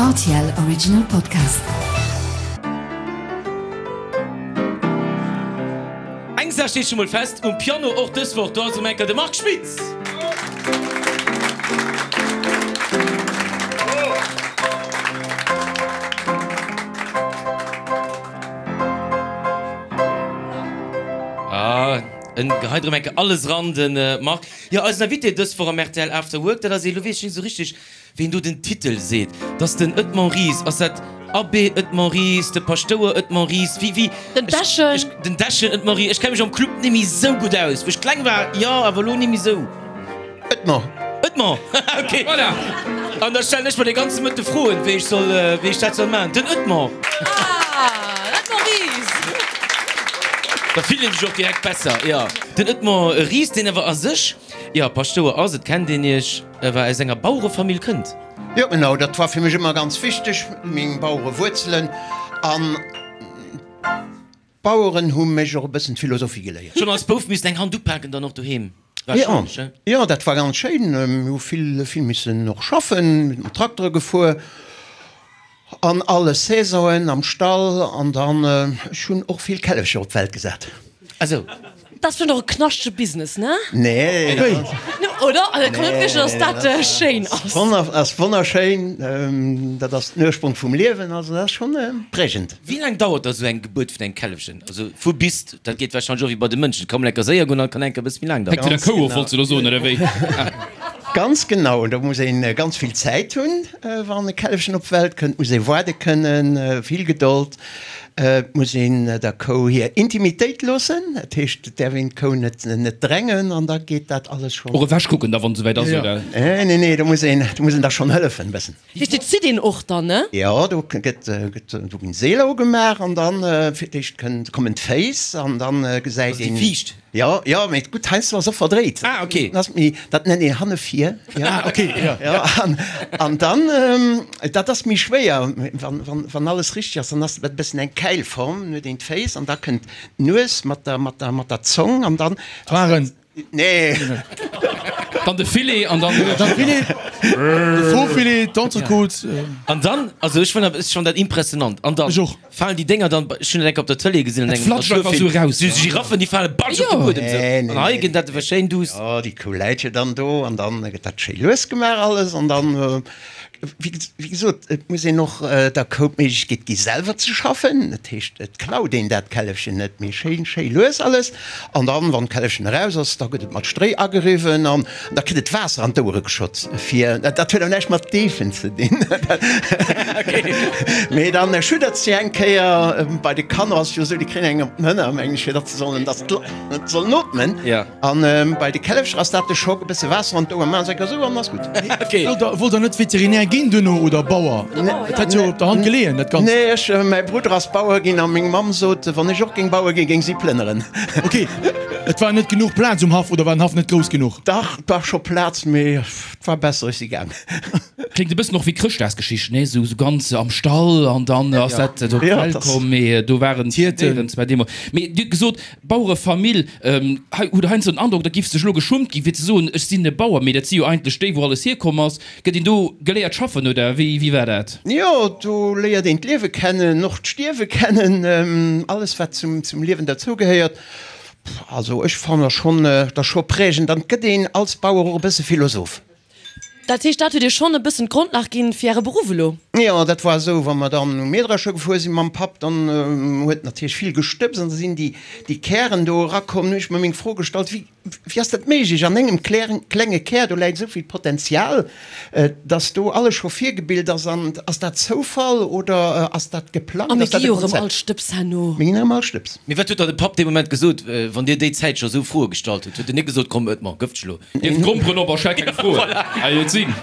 Rtl Original Podcast. Eng Saach steet scho mol fest, um Piano och dës Woch, do ass um Enker de Marc Schmitz! Ah, en geheit erëm enke alles ran, de Marc. Jo, eisen Invité dës Woch am rtl After Work, dat ass ee, lo weess ech net esou richteg, ween do den Titel seet, dat ass den Edmond Ries. Ass dat Abbé Edmond Ries, de Paschtouer Edmond Ries, wéi, wéi? Den Dechen. Ech, den Dechen Edmond Ries. Ech kenne mech am Club net méi esou gutt aus. Wou ech kleng war, jo, awer elo net méi esou. Edmond. Edmond, ok. Voilà. An da stellen ech mer de ganze Mëtte Froen, wéi ech soll, wéi ech dat soll maachen. Den Edmond. Ah, Edmond Ries. Da fillt een sech och direkt besser, jo. Den Edmond Ries, deen awer a sech, jo, Paschtouer ass, et kennt een iech, awer aus enger Bauerefamill kënnt. Jo, genau, dat war fir mech ëmmer ganz wichteg, meng Bauerewuerzelen. An D'Baueren hu mech och e bëssen d'Philosophie geléiert. Schonn als Bouf missen eng Hand upaken dann och doheem, warscheinlech, he? Jo, dat war ganz schéin. Mir hu vill, vill missen och schaffen, mat Traktere gefuer an alle Saisonen am Stall an dann, ech hunn och vill Källefcher op d'Welt gesat. Ah sou. Dat ass vläicht och e knaschtege Business, ne? Nee. Oder? Also, kann net wierklech, datt dat schéin ass. Ass wonnerschéin. Dat ass den Ursprong vum Liewen, also dat ass schonn prägend. Wéi laang dauert da sou eng Gebuert vun engem Källefchen? Also vu bis, dat geet warscheinlech och wéi bei de Mënschen, et ka mol enker séier goen an et kann enker e bësse méi laang Hänkt vun der daueren. Kou of, wollts de elo soen, oder wéi? Ganz genau, do muss een ganz vill Zäit hunn, wann e Källefchen op d'Welt kënnt, muss ee waarde kënnen, vill Gedold. Et muss een der Kou hir Intimitéit loossen, dat heescht, et däerf een d'Kou net net drängen an da geet dat alles schonn. Och ewech kucken da wann et esouwäit ass, oder? Nee, nee, nee, do muss een, do muss een da schonn hëllefen e bëssen. Heescht, et zitt een och dann, ne? Jo, do gëtt, gëtt, do ginn Seeler ugemaach an dann fir d'éischt kënnt, kommen d'Féiss an dann gesäit Also déi een. Viischt? Jo, jo, mee gutt, heiansdo ass och verdréit. Ah, ok. Dat ass méi, dat nennt een hannevir. Ah, ok, jo. Jo, an, an dann, dat ass méi schwéier, wann, wann, wann alles richteg ass, dann ass dat e bëssen eng Käilform, dann huet een d'Féiss an da kënnt d'Nues mat der, mat der, mat der Zong an dann. D'Hoaren. Nee. Dann de Filet an dann. Dann Filet, de Faux-Filet, d'Entrecôte. An dann, also ech fannen, ech fannen dat impressionant. An dann. Ech och. Falen déi Dénger dann, ech hunn dat enk op der Tëlee gesinn an Dat engem flatscht einfach esou Naturfilm, eraus, sou ja. Giraffen, déi fale batsch op de Jo. Buedem sou. Nee, nee, An hei nee. ginn dat awer schéin duuss. Jo, déi Kou läit jo dann do an dann gëtt dat schéi lues gemaach alles an dann, wéi wéi gesot, et muss een och der Kou d'Méiglechkeet gi selwer ze schaffen. Dat heescht, et klaut een dat Källefchen net, mee schéin, schéi lues alles. An dann, wann d'Källefchen eraus ass, da gëtt et mat Stréi ageriwwen an da kritt et Waasser an d'Ouere geschott, fir, dat huet awer näischt mat Deefen ze dinn, mee dann schuddert se eng Kéier. Bei de Kanner ass et jo esou, déi kréien eng op den Hënner, mengen ech, fir datt se sollen, datt se sollen ootmen. An bei de Källefcher ass dat de Schock, e bësse Waasser an d'Ouer maachen, se enker esou an ass gutt. Wollt der net Veterinär ginn duerno oder Bauer? Et hätt jo op der Hand geleeën, dat Ganzt. Nee, ech, mäi Brudder ass Bauer ginn a meng Mamm sot, wann ech och géing Bauer ginn, géing si plënneren. Ok, et war net genuch Plaz um Haff oder war den Haff net grouss genuch? Dach, et war scho Plaz, mee et war besser, ech si gaang. Kléngt e bëssen och wéi Chrëschtdagsgeschicht, nee? Esou ganz am Stall an dann ass dat op d'Welt komm, mee do waren d'Hierten zwar deemools. Mee Dir hutt gesot, Bauerefamill, hei hutt Der heiansdo den Androck, da giff sech elo geschummt ginn, fir ze soen, ech sinn e Bauer, mee dat si jo eigentlech déi, wou alles hierkomm ass. Gëtt een do geléiert schaffen oder wéi, wéi war dat? Jo, do léiert een d'Liewe kennen, och d'Stierwe kennen, alles wat zum, zum Liewen derzougehéiert. Also ech fannen schonn, dat ass scho prägend an et gëtt een als Bauer och e bësse Philosoph. Dat heescht, dat huet Iech schonn e bëssen d'Grondlag ginn fir Äre Beruff elo? Jo, dat war esou, wa mer dann um Mähdrescher gefuer sinn mam Papp, dann huet natierlech vill gestëbst an da sinn déi, déi Kären do erakomm. Nun hu ech mer meng Fro gestallt, wéi, wéi ass dat méiglech, an engem klenge Kär, do läit esou vill Potenzial, dass do alles scho virgebilt ass. An ass dat Zoufall oder ass dat geplangt, A mir ass dat gi e jo erëm all Konzept? Stëbs herno. Mir ginn erëm all Stëbs. Mee wat huet da de Papp dee Moment gesot, wann Dir déi Zäit scho esou Froe gestallt hutt? Huet en net gesot, komm Oetmar, gëff dech elo? Dierf d'Gromperen op a stell keng Froen. Hei et sinn.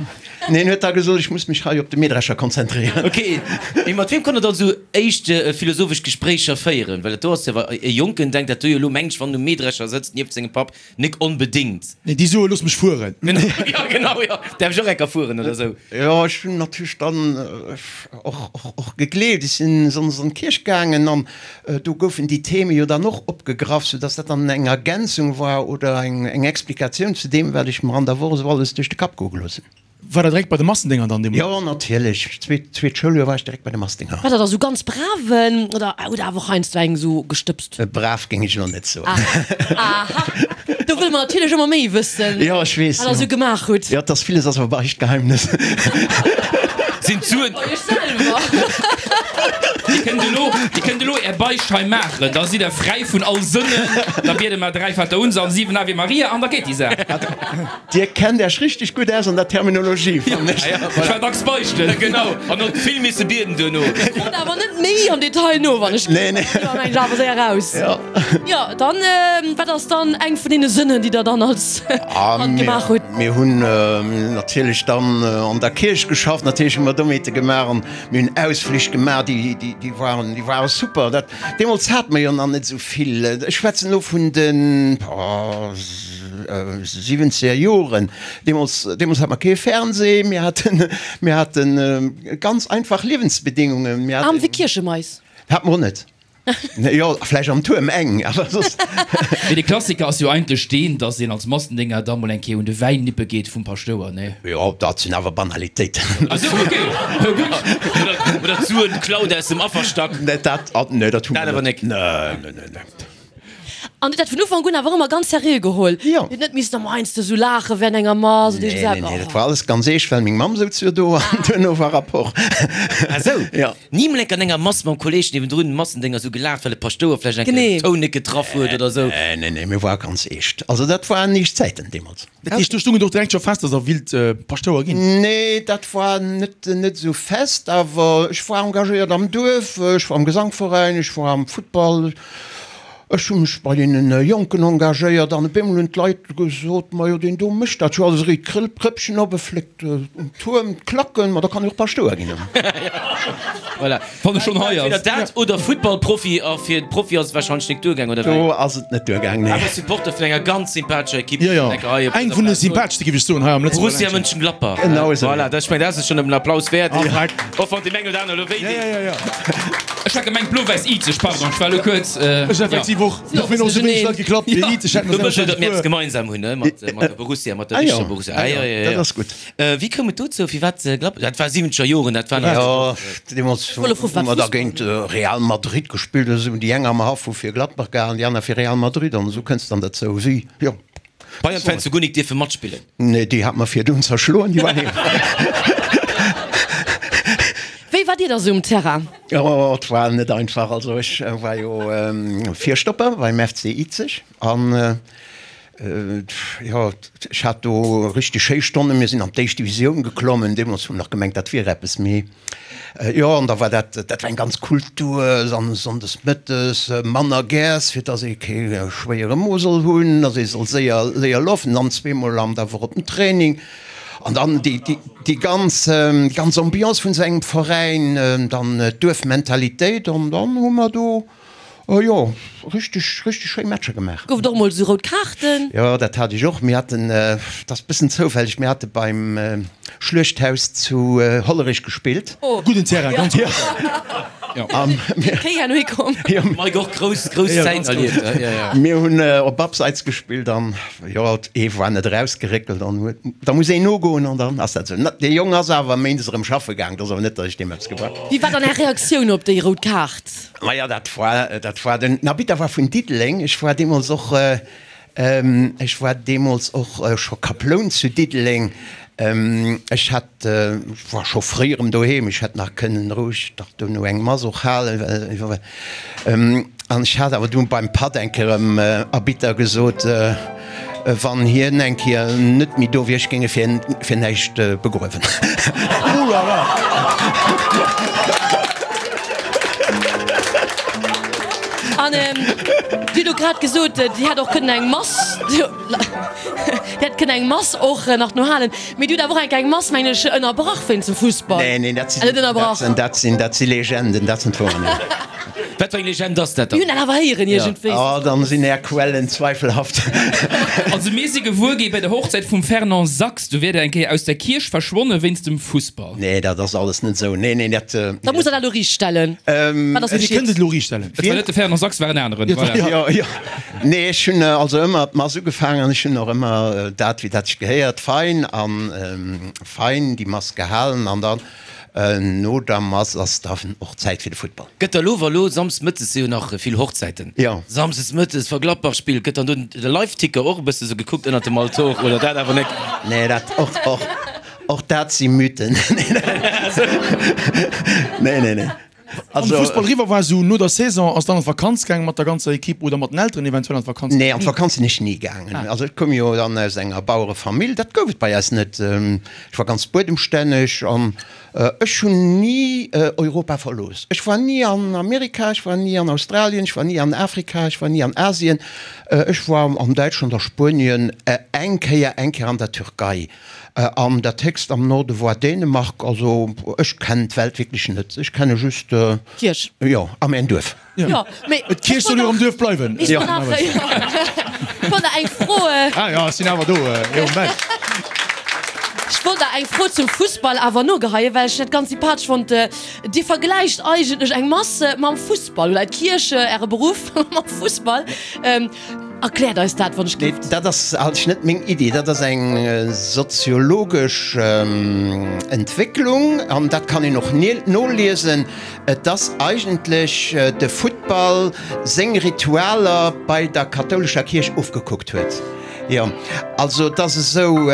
Nee, en huet da gesot, ech muss mech hei op de Mähdrescher konzentréieren. Ok, mee mat wiem konnt der dann esou éischt philosophesch Gespréicher féieren? Well dat do ass jo, e Jonken denkt dat do jo elo, mengt ech, wann en um Mähdrescher sëtzt nieft sengem Papp, nik onbedéngt. Nee, déi soe looss mech fueren. Jo, genau, jo, däerf ech och enker fueren oder esou? Jo, ech hunn natierlech dann och, och, och gegleeft. Ech sinn sonndes an d'Kierch gaangen an Do goufen déi Theme jo dann och opgegraff, soudass dat dann eng Ergänzung war oder eng Explikatioun zu deem, wat ech mer an der Woch esou alles duerch de Kapp goe gelooss hunn. War der direkt bei de Massendénger dann deemools? Jo, natierlech. Zweet, zweet Schouljoer war ech direkt bei de Massdénger. War der da sou ganz braven oder hutt der awer och heiansdo eng sou gestëbst? Brav géing ech elo net soen. Aha, do wëlle mer natierlech ëmmer méi wëssen, Jo, ech weess, wat der jo. sou gemaach hutt. Jo, et ass villes ass awer Beichtgeheimnis. Sinn d'Suen. Bei iech selwer. Dir kënnt elo, dir kënnt elo är Beicht hei maachen, da sidd der fräi vun all Sënnen. Da biede mer 3 Vaterunser an 7 Ave Maria an da geet déi Saach. Dir kennt Äech richteg gutt aus an der Terminologie, fannen ech. Ech war dacks beichten. Genau, an och vill misse bieden duerno. Froen awer net méi am Detail no, wann ech. Nee, nee. Do mengen ech awer séier raus. Jo. Jo, dann, wat ass dann eng vun deene Sënnen, déi der dann als Kand gemaach hutt? Mir hunn natierlech dann an der Kierch geschafft, natierlech hu mer Domeete gemaach an mir hunn Ausflich gemaach, déi, déi waren, déi ware super. Dat, deemools hate mer jo nach net esou vill, ech schwätzen elo vun den siwwenzeger Joren, deemools, deemools hate mer kee Fernseh, mir haten, mir haten ganz einfach Liewensbedingungen. Mir Aarm haten. wéi Kierchemais. Hate mer och net. Jo, vläicht am Tuerm eng, awer soss. Mee de Klassiker ass jo eigentlech deen, dass een als Massendénger da mol eng Kéier un de Wäin nippe geet vum Paschtouer, nee? Jo, dat sinn awer Banalitéiten. Ah sou, ok, gutt. Oder d'Suen klaut aus dem Afferstack. Nee, dat, nee, dat hu mer Dat awer net. nek. Nee, nee, nee, nee. An hutt dat vun Ufank un awer ëmmer ganz seriö geholl? Jo. Dir hutt net missen ëmmer heiansdo sou laache während enger Mass oder Nee, iergend nee, nee, eppes? dat war alles ganz eescht, well meng Mamm souz jo do an duerno war Rapport. Ah sou? Jo. Ni mol enk an enger Mass mam Kolleg niewendrun Massendénger sou gelaacht, well de Paschtouer vläicht eng Kéier Genee. den Toun net getraff huet oder sou? Nee, nee, nee, mir ware ganz eescht. Also dat waren eescht Zäiten deemools. Dat heescht, do stung et och direkt scho fest, dass Der willt Paschtouer ginn? Nee, dat war net, net esou fest, awer ech war engagéiert am Duerf, ech war am Gesangveräin, ech war am Futtball. Ech hu mech bei deene Jonken engagéiert an op eemol hunn d'Leit gesot, Majo, deen do mécht dat jo alles, e réit d'Krëppchen op, e fléckt um Tuerm d'Klacken, ma da kann e jo och Paschtouer ginn. Voilà. Wann e schonn hei ass. Entweder dat oder Futtballprofi, a fir de Profi ass et warscheinlech nik duergaang, oder wéi? Do ass et net duergaang, nee. Awer Supporter vun enger ganz sympathescher Ekipp. Jo, jo, eng vun de sympatheschste, géif ech soen, hei am Lëtzebuerger Borussia Ländchen. Mönchengladbach. Genau esou. Voilà, dat, ech mengen, dat ass schonn en Applaus wäert. Korrekt. Och wann deem eng oder aner elo wéi Ja, deet. ja, ja, ja. Ech hat gemengt blo-wäiss Izeg, pardon, ech war elo kuerz. Ech effektiv och. Do hunn och sou wéineg Leit geklappt wéi Izeg hätten Do das wëscht der, datt mir eppes puer. gemeinsam hunn, ne, mat mat der Borussia, mat der Ah jo, richteger Borussia. ah Ah jo, jo, jo, jo. dat ass gutt. Wéi koum et dozou? Firwat Gladbach? Dat war siwwenzeger Joren, dat war nach. Jo, deemools Volle hu Fussball. mer da géint Real Madrid gespillt oder sou. Déi eng am Haff hu fir Gladbach gehalen, déi aner fir Real Madrid an esou kënns dann dozou. Si, jo. Bayern-Fans hu guer nik dierfe matspillen. Nee, déi hat mer virdun zerschloen, déi waren heem. Wéi war Dir da sou um Terrain? Oh, et war net einfach. Also ech war jo Virstopper beim FC Izeg an jo, ech hat do richteg schéi Stonnen. Mir sinn an d'éischt Divisioun geklommen. Deemools hu mer nach gemengt, dat wier eppes, mee Jo, an da war dat, dat war eng ganz Kultur, an sonndes mëttes manner Gäers, fir dass ee kee schwéiere Mo soll hunn, dass ee soll séier, séier lafen, dann zweemol am der Woch op den Training. An dann déi, déi, déi ganz, ganz Ambiance vun esou engem Veräin, dann d'Duerfmentalitéit, an dann hu mer do, Oh jo, richteg, richteg schéi Matcher gemaach. Gouf et och mol sou rout Kaarten? Jo, dat hat ech och. Mir haten, dat ass bëssen zoufälleg, mir hate beim Schluechthaus zu Hollerech gespillt. Gudden Terrain, ganz gudden Terrain. Jo. Kéi herno hikomm. Mike och grouss, grouss Zäiten erlieft. Mir hunn op Abseits gespillt an jo, ee war net erausgeréckelt an huet, da muss een nogoen an dann ass dat esou. Dee Jong ass awer méindes erëm schaffe gaang, dat ass awer net, datt ech deem eppes gebracht. Wéi war dann Är Reaktioun op déi rout Kaart? Maja, dat war, dat war den Arbitter war vun Diddeleng. Ech war deemools och, ech war deemools och scho Kaploun zu Diddeleng. Ech hat, ech war scho fréi erëm doheem, ech hätt nach kënnen roueg nach dono eng Mass och halen, well, an ech hat awer du beim Patt eng Kéier dem Arbitter gesot, Wann hien eng Kéier net méi do wier, ech géing e fir fir näischt begruewen. Oh la la! An Dir hutt och grad gesot, Dir hätt och kënnen eng Mass, Dir hätt kënnen eng Mass och nach no halen, mee Dir hutt awer och eng Kéier eng Mass, mengen ech, ënnerbrach wéinst dem Fussball. Nee, nee, dat sinn, Net ënnerbrach? dat sinn, dat si Legenden, dat sinn d'Wouer net. Wat fir eng Legend ass dat dann? Mir hunn dat awer héieren iergendwéi. Oh, dann sinn är Quellen zweifelhaft. Also mir si gewuer gi bei der Hochzäit vum Fernand Sachs, du wier der eng Kéier aus der Kierch verschwonne wéinst dem Fussball. Nee, dat ass alles net esou. Nee, nee, dat. Da musst der dat elo riichtstellen. Wat ass Dir kënnt et elo riichtstellen. Et war net de Fernand Sachs, war en aneren. Voilà. Jo, jo. Nee, ech hunn also ëmmer d'Mass ugefaangen an ech hunn och ëmmer dat, wéi dat sech gehéiert, fein a fein déi Mass gehalen an dann no der Mass ass dann och Zäit fir de Futtball. Gëtt da lo, wa lo Samsdes mëttes si jo nach vill Hochzäiten, Jo. Samsdes mëttes, wa Gladbach spillt, gëtt dann do de Liveticker och e bësse sou gekuckt ënnert dem Altor oder dat awer net? Nee, dat och, och, och dat si Mythen. Nee, nee, nee. Wann de Fussball eriwwer war, sou no der Saison, ass dann an d'Vakanz gaangen mat der ganzer Equipe oder mat den Elteren eventuell an d'Vakanz? Nee, an d'Vakanz sinn ech ni gaangen. Also ech koum jo dann aus enger Bauerefamill, dat gouf et bei eis net. Ech war ganz buedemstänneg an ech hunn ni Europa verlooss. Ech war ni an Amerika, ech war ni an Australien, ech war ni an Afrika, ech war ni an Asien. Ech war an Däitschland, a Spuenien, eng Kéier, eng Kéier an der Türkei. An dat héchst am Norde woar Dänemark. Also ech kennen d'Welt wierklech net. Ech kenne just. D'Kierch. Jo, a mäin Duerf. Jo, mee. D'Kierch soll jo am Duerf bleiwen. Ech wollt nach, jo, ech wollt nach eng Fro. Ah jo, ech sinn awer do, jo, Mensch. Ech wollt nach eng Fro zum Fussball awer nogeheien, well ech dat ganz sympathesch fonnt. Dir vergläicht eigentlech eng Mass mam Fussball, oder d'Kierch, Äre Beruff, mam Fussball. Erkläert eis dat, wann ech Nee, gift. dat ass eigentlech net meng Iddi. Dat ass eng soziologesch Entwécklung an dat kann een och noliesen. Et ass eigentlech de Futtball seng Ritualer bei der kathoulescher Kierch ofgekuckt huet. Jo, also et ass esou.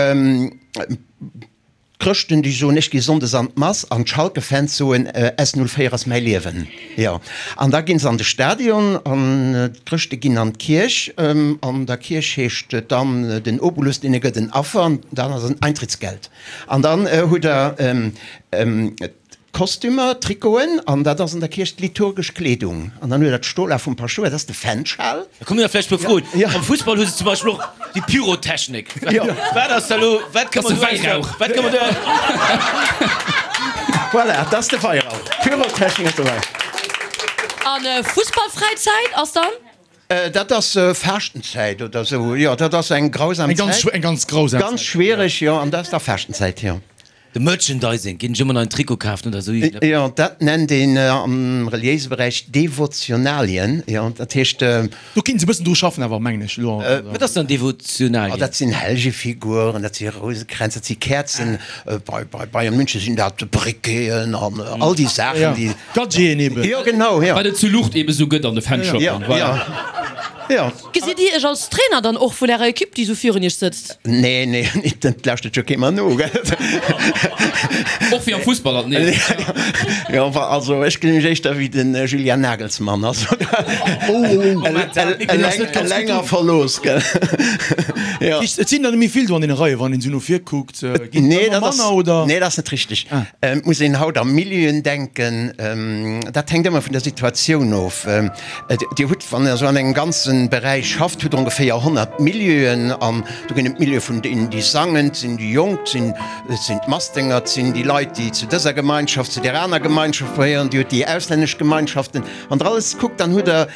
D'Chrëschten, déi soen, ech gi sonndes an d'Mass, an d'Schalke-Fans soen, S 04 ass mäi Liewen. Jo, an da ginn se an de Stadion an d'Chrëschte ginn an d'Kierch. An der Kierch heescht et dann, den Obolus, deen e gëtt en Affer, an dann ass en Eintrittsgeld. An dann hutt Der D'Kostümer, d'Trikoten, an dat ass an der Kierch d'liturgesch Kleedung. An dann huet der d'Stola vum Paschtouer, dat ass de Fenschal. Da kommen der vläicht puer Froen. Am Fussball hu se zum Beispill och déi Pyrotechnik. Wat ass da lo, wat ka man do Wäirauch? Wat ka man do? Voilà, dat ass de Weirauch. Pyrotechnik ass de Weirauch. An Fussballfräizäit ass dann? Dat ass Faaschtenzäit oder esou, jo, dat ass eng grausam Zäit. Eng ganz grausam Zäit. Ganz schwiereg, jo, an dat ass da Faaschtenzäit, jo. De Merchandising, ginn ech ëmmer nach en Trikot kafen oder esou iergendepps? Jo, dat nennt een am reliéise Beräich Devotionalien, jo, dat heescht. Do kéint se e bëssen dru schaffen awer, mengen ech elo. Wat ass dann Devotionalien? Oh, dat sinn Hellegefiguren, dat si Rousekränz, dat si Käerzen, bei bei Bayern München sinn dat Briqueten an all déi Saachen, déi. Gadgeten eben. Jo, genau, jo. Wat et zu Luucht eben esou gëtt an de Fanshoppen, voilà. Jo, jo. Gesitt Dir Iech als Trainer dann och vun Ärer Equipe, déi esou virun Iech sëtzt? Nee, nee, et lauschtert jo kee mer no, gell? Och wéi am Fussball alt, nee. Jo, also ech gesinn mech éischter wéi de Julian Nagelsmann, also eleng a verlooss, gell? Jo. Et sinn der net méi vill do an deene Reien, wann een esou no vir kuckt, ginn et ëmmer manner, oder? Nee, dat ass net richteg. Et muss een haut a Milieuen denken, dat hänkt ëmmer vun der Situatioun of. Dir hutt, wann Der esou an engem ganze Beräich schafft, hutt Der ongeféier 100 Milieuen. An do ginn et d'Milieue vun deenen, déi sangen, et sinn déi Jonk, et sinn d'Massdénger, et sinn déi Leit, déi zu dëser Gemeinschaft, zu där aner Gemeinschaft gehéieren, Dir hutt déi auslännesch Gemeinschaften. Wann Der alles kuckt, dann hutt Der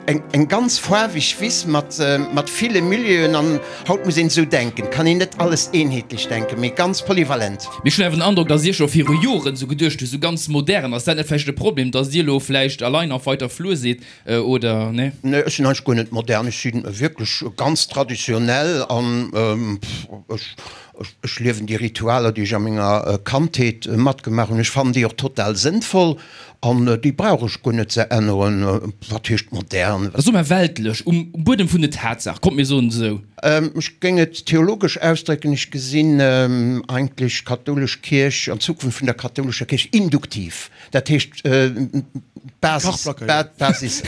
eng ganz faarweg Wiss mat ville Milieuen. An haut muss een esou denken, et kann een net alles eenheetlech denken, mee ganz polyvalent. Mee ech hunn awer den Androck, datt Dir scho viru Joren esou geduecht hutt, esou ganz modern. Ass dat net vläicht e Problem, datt Dir elo vläicht allein auf weiter Flur sidd, oder nee? Nee, ech sinn eigentlech guer net modern. Ech si wierklech ganz traditionell an ech liewen déi Ritualer, déi ech a menger Kandheet matgemaach hunn. Ech fannen déi och total sënnvoll An déi brauch ech guer net ze änneren. Wat heescht modern? Soe mer weltlech, um Buedem vun den Tatsaach, kommt mir soen et esou. Ech géing et theologesch ausdrécken, ech gesinn eigentlech d'kathoulesch Kierch an d'Zukunft vun der kathoulescher Kierch induktiv. Dat heescht, d'Basis, d'Basis,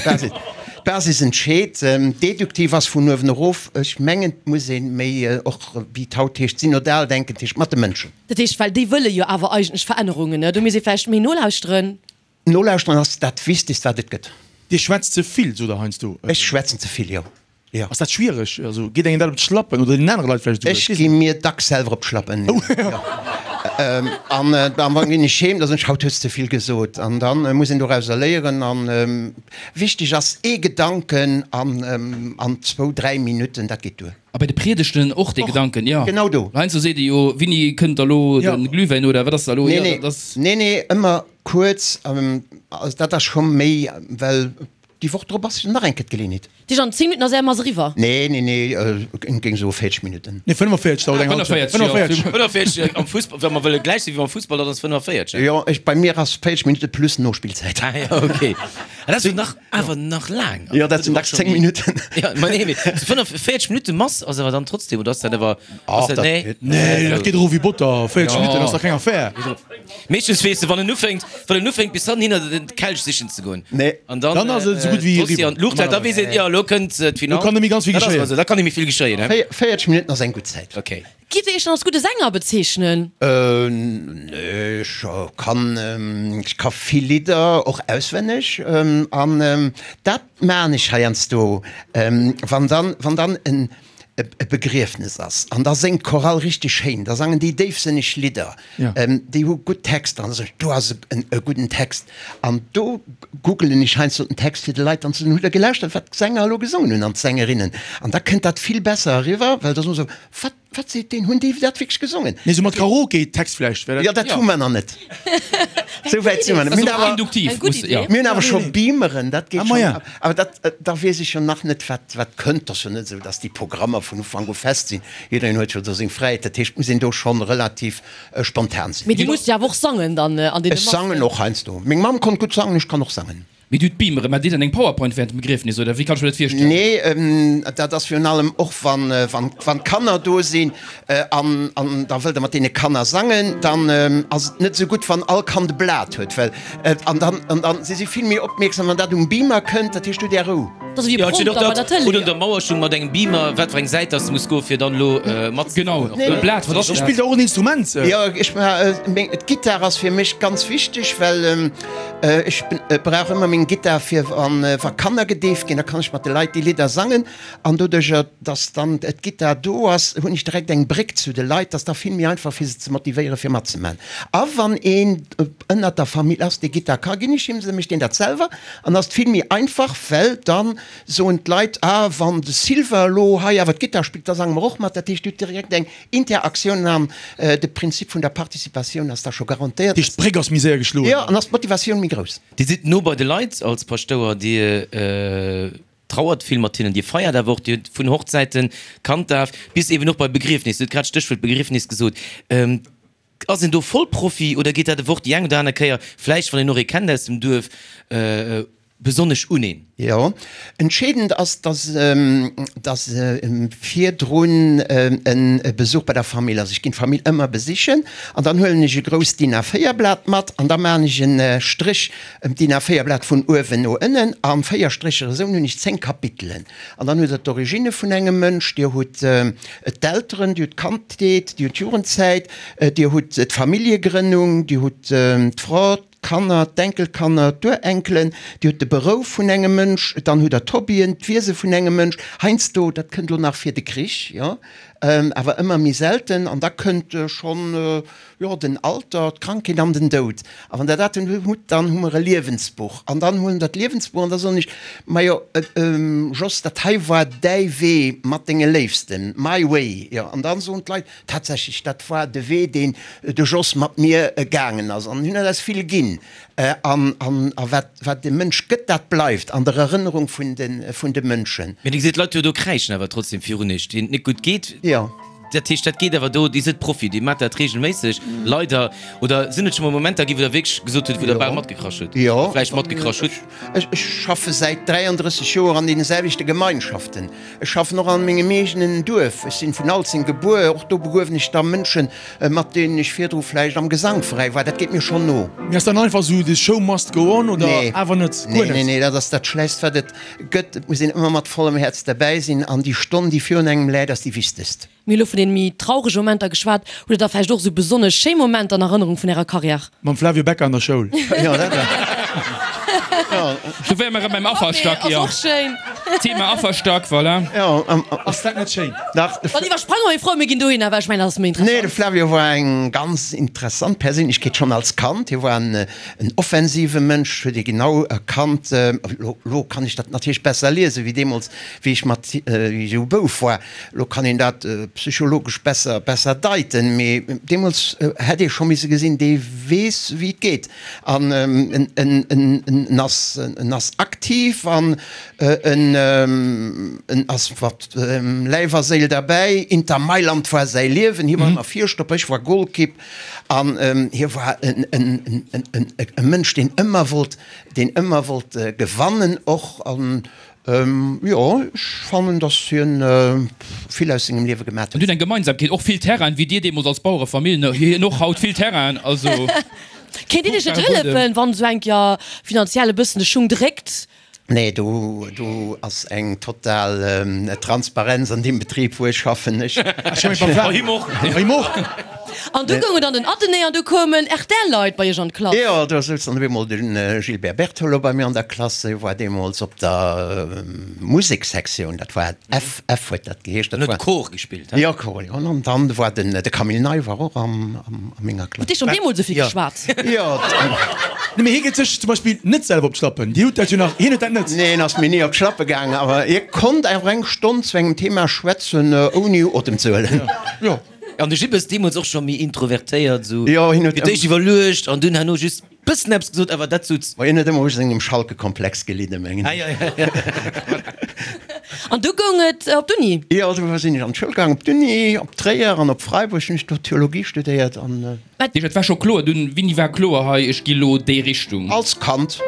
d'Basis entscheet. Deduktiv ass vun uewen erof. Ech mengen, et muss ee méi och, wéi et haut heescht, synodal denken, dat heescht mat de Mënschen. Dat heescht, well déi wëlle jo awer eigentlech Verännerungen, ne? Do misst ee vläicht méi nolauschteren. Nolauschteren ass dat Wichtegst, wat et gëtt. Dir schwätzt ze vill, sot Der heiansdo. Ech schwätzen ze vill, jo. Jo. Ass dat schwiereg? Also geet engem dat op d'Schlappen oder deenen anere Leit vläicht esouguer? Ech gi mir dacks selwer op d'Schlappen, jo. An dann ginn ech heem, da soen ech, haut hues de ze vill gesot. An da muss een dorauser léieren. An wichteg ass ee Gedanken an zwou, dräi Minutten, dat geet duer. A bei de Priedegten och dee Gedanken, jo. Genau do. Heiansdo seet ee jo, Winni, kënnt da lo de Glühwäin oder wat ass da lo? Nee, nee, nee, nee, ëmmer kuerz. Also dat ass scho méi, well déi Woch drop ass jo nach eng Kéier d'Geleeënheet. Déi an 10 Minutten ass är Mass eriwwer. Nee, nee, nee, ech géing soe 40 Minutten. Nee, 45 dauert eng Halschent. 45. 45 am Fussball, wa mer wëlle gläich si wéi beim Fussball, dann ass 45. Jo, ech, bei mir ass 40 Minutte plus Nospillzäit. Ah jo, okay. Ah, dat ass jo nach, awer nach laang. Jo, dat sinn dacks 10 Minutten. Jo, ma nee, mee 45 Minutte Mass ass awer dann trotzdem, oder ass dat awer, ass dat, nee? Nee, dat geet erof wéi Botter. 40 Minutten ass dach keng Affär. Meeschtens weess de, wann en ufänkt, wann en ufänkt bis hannen hinner den Kelch sichen ze goen. Nee. An dann, Dann ass et esou gutt wéi d'Hostie an d'Luucht hält, da weess een, jo, elo kënnt d'Finall. Lo kann net méi ganz vill Dat ass geschéien. also, da kann net méi vill geschéien, he? 40 Minutten ass eng gutt Zäit. Okay. Gitt Dir Iech dann als gudde Sänger bezeechnen? Nee, ech kann, ech ka vill Lidder och auswenneg an dat maan ech heiansdo, wann dann, wann dann en e Begriefnes ass an da séngt d'Chorale richteg schéin, da sangen déi déifsënneg Lidder, déi hu gutt Texter an da soen ech, do ass e gudden Text an do googelen ech heiansdo den Text fir de Leit dann ze soen, hutt der gelauschtert wat d'Sänger elo gesongen hunn an d'Sängerinnen an da kënnt dat vill besser eriwwer, well da soen se, wat Wat seet deen? Hunn déi dat wierklech gesongen? Nee, sou mat Karaoke-Text vläicht wär dat. Jo, dat hu mer nach net. Sou wäit si mer net. Mir hunn awer, Induktiv, muss, jo. mir hunn awer scho Beameren, dat geet Ah, ma schonn. ja. Awer dat, da weess ech jo nach net, wat, wat kënnt. Et ass jo net esou, datt déi Programmer vun Ufank u fest sinn. Jiddereen huet jo do seng Fräiheet. Dat heescht, et muss een do schonn relativ spontan sinn. Mee Dir musst jo awer och sangen dann an deene Ech sangen Massen. och heiansdo. Meng Mamm konnt gutt sangen, ech kann och sangen. Mee du d'Beamere, maacht Dir dann eng Powerpoint während dem Begriefnis oder wéi kann ech mir dat virstellen? Nee, dat ass virun allem och wann wann d'Kanner do sinn an an da wëllt Der mat deene Kanner sangen, dann ass et net esou gutt wann all Kand e Blat huet, well an dann an dann si si vill méi opmierksam wann dat um Beamer kënnt, dat heescht du hutt Är Rou. Dat ass ewéi e Prompter bei der Tëlee. Oder un der Mauer stoung mat engem Beamer, wat fir eng Säit dass de muss goen fir dann elo mat. Genau, e Blat, wat ass dat? Spillt Der och en Instrument? Jo, ech meng d'Gittar ass fir mech ganz wichteg, well Ech brauch ëmmer meng Gittar fir wa Kanner gedeeft ginn, da kann ech mat de Leit déi Lidder sangen. An doduercher, dass dann d'Gittar do ass, hunn ech direkt eng Bréck zu de Leit, dass da vill méi einfach fir se ze motivéieren, fir matzemaachen. A wann een ënnert der Famill ass, dee Gittar ka, ginn ech him se, mécht deen dat selwer an ass et vill méi einfach, well dann soen d'Leit, ah wann de Sylvain elo hei awer d'Gittar spillt, da sange mer och mat. Dat heescht, du hutt direkt eng Interaktioun an de Prinzip vun der Participatioun ass da scho garantéiert. Dat heescht, d'Bréck ass méi séier geschloen. Jo, an ass d'Motivatioun méi grouss. Dir sidd no bei de Leit als Paschtouer, Dir trauert vill mat hinnen, Dir feiert awer och, Dir hutt vun Hochzäiten, Kanddaf bis eben och bei Begriefnis, Dir hutt grad d'Stéchwuert Begriefnis gesot. Ass een do Vollprofi oder geet dat ewch déi eng oder aner Kéier, vläicht wann een och ee kennt aus dem Duerf, besonnesch un een? Jo, entscheedend ass, dass dass virdrun e Besuch bei der Famill ass. Ech ginn d'Famill ëmmer besichen an dann huelen ech e grousst DIN A4 Blat mat an da maachen ech e Stréch ëm d'DIN A4 Blat vun uewen no ënnen a 4 Strécher. Esou hunn ech 10 Kapitelen an dann hutt der d'Originne vun engem Mënsch, dir hutt d'Elteren, dir hutt d'Kandheet, dir hutt d'Jugendzäit, dir hutt d'Familljegrënnung, dir hutt d'Fra, d'Kanner, d'Enkelkanner, d'Urenkelen, Dir hutt de Berouf vun engem Mënsch, dann hutt Der d'Hobbyen, d'Wiese vun engem Mënsch, heiansdo, dat kënnt elo nach fir de Krich, jo, awer ëmmer méi selten, an da kënnt schonn, jo, den Alter, d'Krankheet an den Doud. A wann Der dat dann hutt, dann hu mer e Liewensbuch. An dann huelen Der d'Liewensbuch an da soen ech, Majo, Jos, dat hei war däi Wee mat denge Léifsten, my way, jo. An da soen d'Leit, Tatsächlech, dat war de Wee, deen de Jos mat mir gaangen ass. An hien huet eis vill ginn. An wat, wat de Mënsch gëtt, dat bleift an der Erënnerung vun de, vun de Mënschen. Mee Dir gesitt, d'Leit jo do kräischen awer trotzdem virun Iech, deenen et net gutt geet. Jo. Dat heescht, dat geet awer do, Dir sidd Profi, Dir maacht dat reegelméisseg, leider. Oder sinn et scho mol Momenter ginn, wou Der wierklech gesot hutt, wou Der bal matgekrasch hutt? Jo. Vläicht matgekrasch hutt? Ech, ech schaffe säit 33 Joer an deene selwechte Gemeinschaften. Ech schaffen och an mengem eegenen Duerf. Ech sinn vun Alzeng gebuer. Och do begruewen ech da Mënschen, mat deenen ech virdru vläicht am Gesangveräi war. Dat geet mir schonn no. Mee ass dann einfach esou the show must go on oder Nee. awer net? Guer Nee, net? nee, nee, dat ass dat Schlechtst, wat et gëtt. Et muss een ëmmer mat vollem Häerz derbäi sinn an déi Stonn, déi virun engem läit, ass déi wichtegst. Mir hu lo vun den méi traurege Momenter geschwat. Hutt der da vläicht och esou besonnesch schéi Momenter an Erënnerung vun ärer Carrière? Mam Flavio Becca an der Schoul. Jo, dat war. Do wäre mer erëm beim Afferstack, jo. Ass och schéin. Thema Afferstack, voilà. Jo. Ass dat net schéin? Dach. Dann iwwersprange mer, meng Fro, mir ginn dohinner, well ech mengen, dat ass méi Nee, de interessant. Flavio war eng ganz interessant Perséinlechkeet, schonn als Kand. Hie war en offensive Mënsch, huet ee genau erkannt. Elo, elo kann ech dat natierlech besser liesen, wéi deemools, wéi ech mat, wéi ech esou Bouf war. Elo kann een dat psychologesch besser, besser deiten, mee deemools hätt ee scho misse gesinn, dee weess, wéi et geet. An en, en, en ass, en ass aktiv an en, en ass mat Läif a Séil derbäi. Inter Mailand war säi Liewen, hie war ëmmer Virstopper, ech war Golkipp. An hie war en, en, en, en, e Mënsch, deen ëmmer wollt, deen ëmmer wollt gewannen och. An Jo, ech fannen, dass hien vill aus sengem Liewe gemat huet. An huet eng Gemeinsamkeet, och vill Terrainen, wéi dir deemools als Bauerefamill, hien och haut vill Terrainen, also Kéint Dir iech net hëllefen, wann esou eng Kéier finanziell e bëssen de Schung dréckt? Nee, do, do ass eng total Transparenz an deem Betrib, wou ech schaffen. Ech. Him och. Him och. An du goung et an den Athenée an du koumen RTL-Leit bei iech an d'Klass. Jo, do souz dann op eemol de Gilbert Bertolo bei mir an der Klass. Hie war deemools op der Musekssektioun, dat war F, F huet dat geheescht. En huet Cor gespillt, he? Jo, Cor, jo. An dann war den, de Camille Ney war och am, a menger Klass. Hutt Dir schonn deemools esou vill geschwat? Jo. Nee, mee hie geet sech zum Beispill net selwer op d'Schlappen. Dir hutt dat jo nach, hien huet dat net. Nee, en ass mir ni op d'Schlappe gaangen, awer hie konnt awer eng Stonn zu engem Thema schwätzen, ouni Otem ze huelen. Jo. An de Jibbes deemools och scho méi introvertéiert, esou Jo, hien huet fir d'éischt iwwerluecht an dunn herno just bëssen eppes gesot, awer dat sot. Ma hien huet ëmmer u sengem Schalke-Komplex gelidden, mengen Ah, ech. ja, ja, ja. An du goung et op d'Uni? Jo, du sinn ech an d'Schoul gaang, op d'Uni, op Tréier an op Freiburg hunn ech do Theologie studéiert an. Dat heescht, et war scho kloer dunn, wéini war kloer, hei, ech gi lo déi Richtung? Als Kand,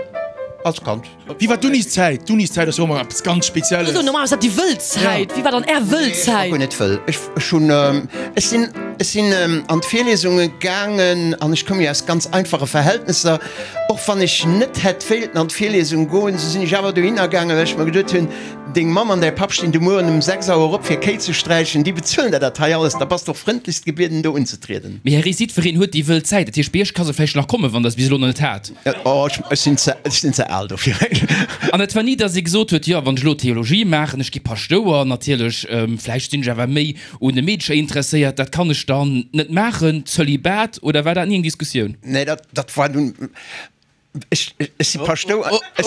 als Kand. Wéi war d'Uniszäit? D'Uniszäit ass jo ëmmer eppes ganz Spezielles. Also normal ass dat déi wëll Zäit. Wéi war dann Är wëll Zäit? Ech war guer net wëll. Ech, ech hunn, ech sinn, ech sinn an d'Virliesunge gaangen an ech koum jo aus ganz einfache Verhältnesser. Och wann ech net hätt wéilten an d'Virliesung goen, sou sinn ech awer dohinner gaangen, well ech mer geduet hunn, Deng Mamm an däi Papp stinn de Mueren um 6 Auer op fir Kéi ze sträichen, déi bezuelen der dat hei alles, da bass de och frëndlechst gebieden do unzetrieden. Mee Här Ries, jiddwereen huet déi wëll Zäit. Dat heescht, bei Iech ka se vläicht nach kommen, wann Der se bis elo nach net hat. Oh, ech sinn ze, ech sinn ze al dofir. An et war ni, datt ee gesot huet, jo, wann ech elo Theologie maachen, ech gi Paschtouer, natierlech, vläicht sinn ech awer méi un de Meedercher interesséiert, dat kann ech dann net maachen, Zölibat, oder war dat ni eng Diskussioun? Nee, dat, dat war dunn, ech, ech si Paschtouer, ech,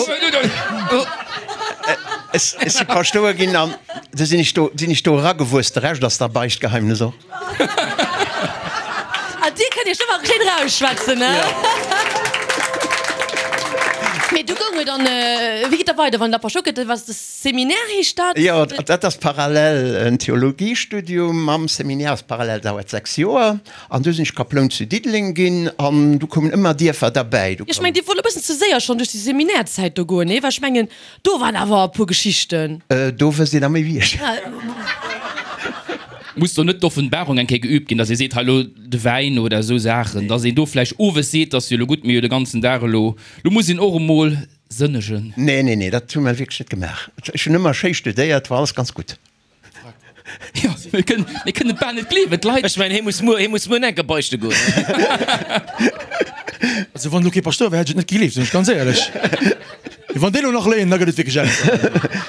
ech, ech si Paschtouer ginn an du sinn ech do, sinn ech do eragewuess, de Rescht ass da Beichtgeheimnis och. Ah, dir kënnt iech ëmmer schéin rausschwätzen, ne? Mee du goung et an, wéi geet da weider, wann der Paschtouer gëtt? Was de Seminaire heescht dat? Jo, dat ass parallel en Theologiestudium mam Seminaire, ass parallel, dauert 6 Joer. An du sinn ech Kaploun zu Diddeleng ginn an du koumen ëmmer Dierfer derbäi. Du Ech mengen, dir wollt e bëssen ze séier schonn duerch déi Seminairzäit do goen, nee? Well ech mengen, do waren awer e puer Geschichten. Do wësst Dir da méi wéi ech. Muss do net d'Offenbarung eng Kéier geübt ginn, dass ee seet, hei elo de Wäin oder esou Saachen, dass een do vläicht owes seet, dass jo elo gutt, mir hu jo de ganzen Dag elo, elo muss een och emol sënnegen. Nee, nee, nee, dat hu mer wierklech net gemaach. Ech hunn ëmmer schéi studéiert, war alles ganz gutt. Jo, mir kënnen, mir kënnen et bal net gleewen, d'Leit. Ech mengen, hie muss muer, hie muss muer enke beichte goen. Also wann elo kee Paschtouer wär, hätt ech et net gegleeft, sinn ech ganz éierlech. Mee wann déi elo nach léien, da gëtt et wierklech Ärger.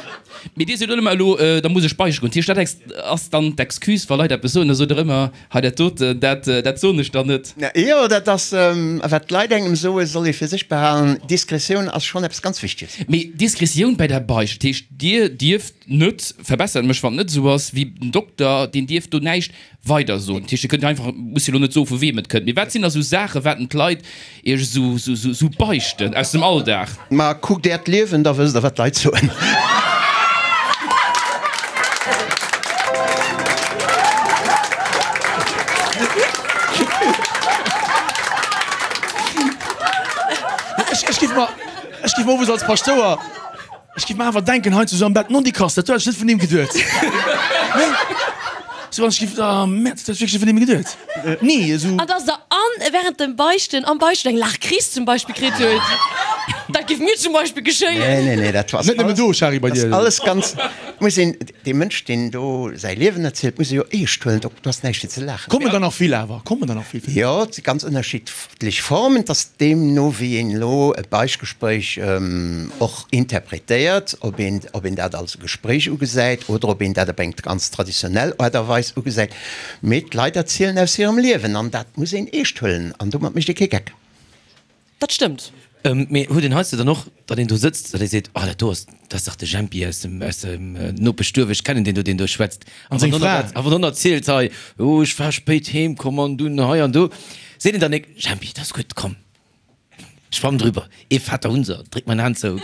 Mee Dir sot ëmmer elo, da muss ech beichte goen. Dat heescht, dat ex, ass dann d'Excuse, wa Leit eppes soen, da sot Der ëmmer, hei dat doten, dat, dat soen ech dann net. Jo, dat ass, wat d'Leit engem soen, soll ee fir sech behalen. Diskretioun ass schonn eppes ganz Wichteges. Mee Diskretioun bei der Beicht, dat heescht, Dir dierft net, verbessert mech wann et net esou ass, wéi den Dokter, deen dierf do näischt weider soen. Dat heescht, Dir kënnt jo einfach, musst jo elo net soe vu weem et kënnt, mee wat sinn da sou Saachen, wat den d'Leit Iech esou, esou, esou beichten aus dem Alldag? Ma kuckt Äert Liewen, da wësst Der wat d'Leit soen. Ech géif mer, ech géif mer owes als Paschtouer. Ech giff mer awer denken heiansdo sou am Bett, non déi Kass, dat huet ech net vun him geduet. Nee. Sou an ech giff, ah Merde, dat huet ech wierklech net vun him geduet. Nee, esou. An dass der an während dem Beichten, am Beichten eng Laachkris zum Beispill kritt huet. Dat géif mir zum Beispill geschéien. Nee, nee, nee, dat ass Net nëmmen do, Shari, bei dir. alles ganz, muss een, dee Mënsch, deen do säi Liewen erzielt, muss ee jo eescht huelen, do ass näischt fir ze laachen. Kommen der nach vill awer? Kommen der nach vill? Jo, et si ganz ënnerschiddlech Formen. Et ass deemno, wéi een elo e Beichtgespréich och interpretéiert, ob een, ob een dat als e Gespréich ugesäit oder ob een dat op eng ganz traditionell Aart a Weis ugesäit. Mee d'Leit erzielen aus hirem Liewen an dat muss een eescht huelen an domat mécht ee kee Geck. Dat stëmmt. Mee huet een heiansdo dann och, datt een do sëtzt, datt ee seet, oh dat do ass, dat ass dach de Jempi aus dem, aus dem Nopeschduerf, ech kennen deen do, deen do schwätzt. An seng Fra. A wann en erzielt hei, oh ech war spéit heem komm an dunn hei an do, seet een dann nik, Jempi, dat ass gutt, komm, schwamm drüber, ee Vater unser, dréck mer en Aan zou,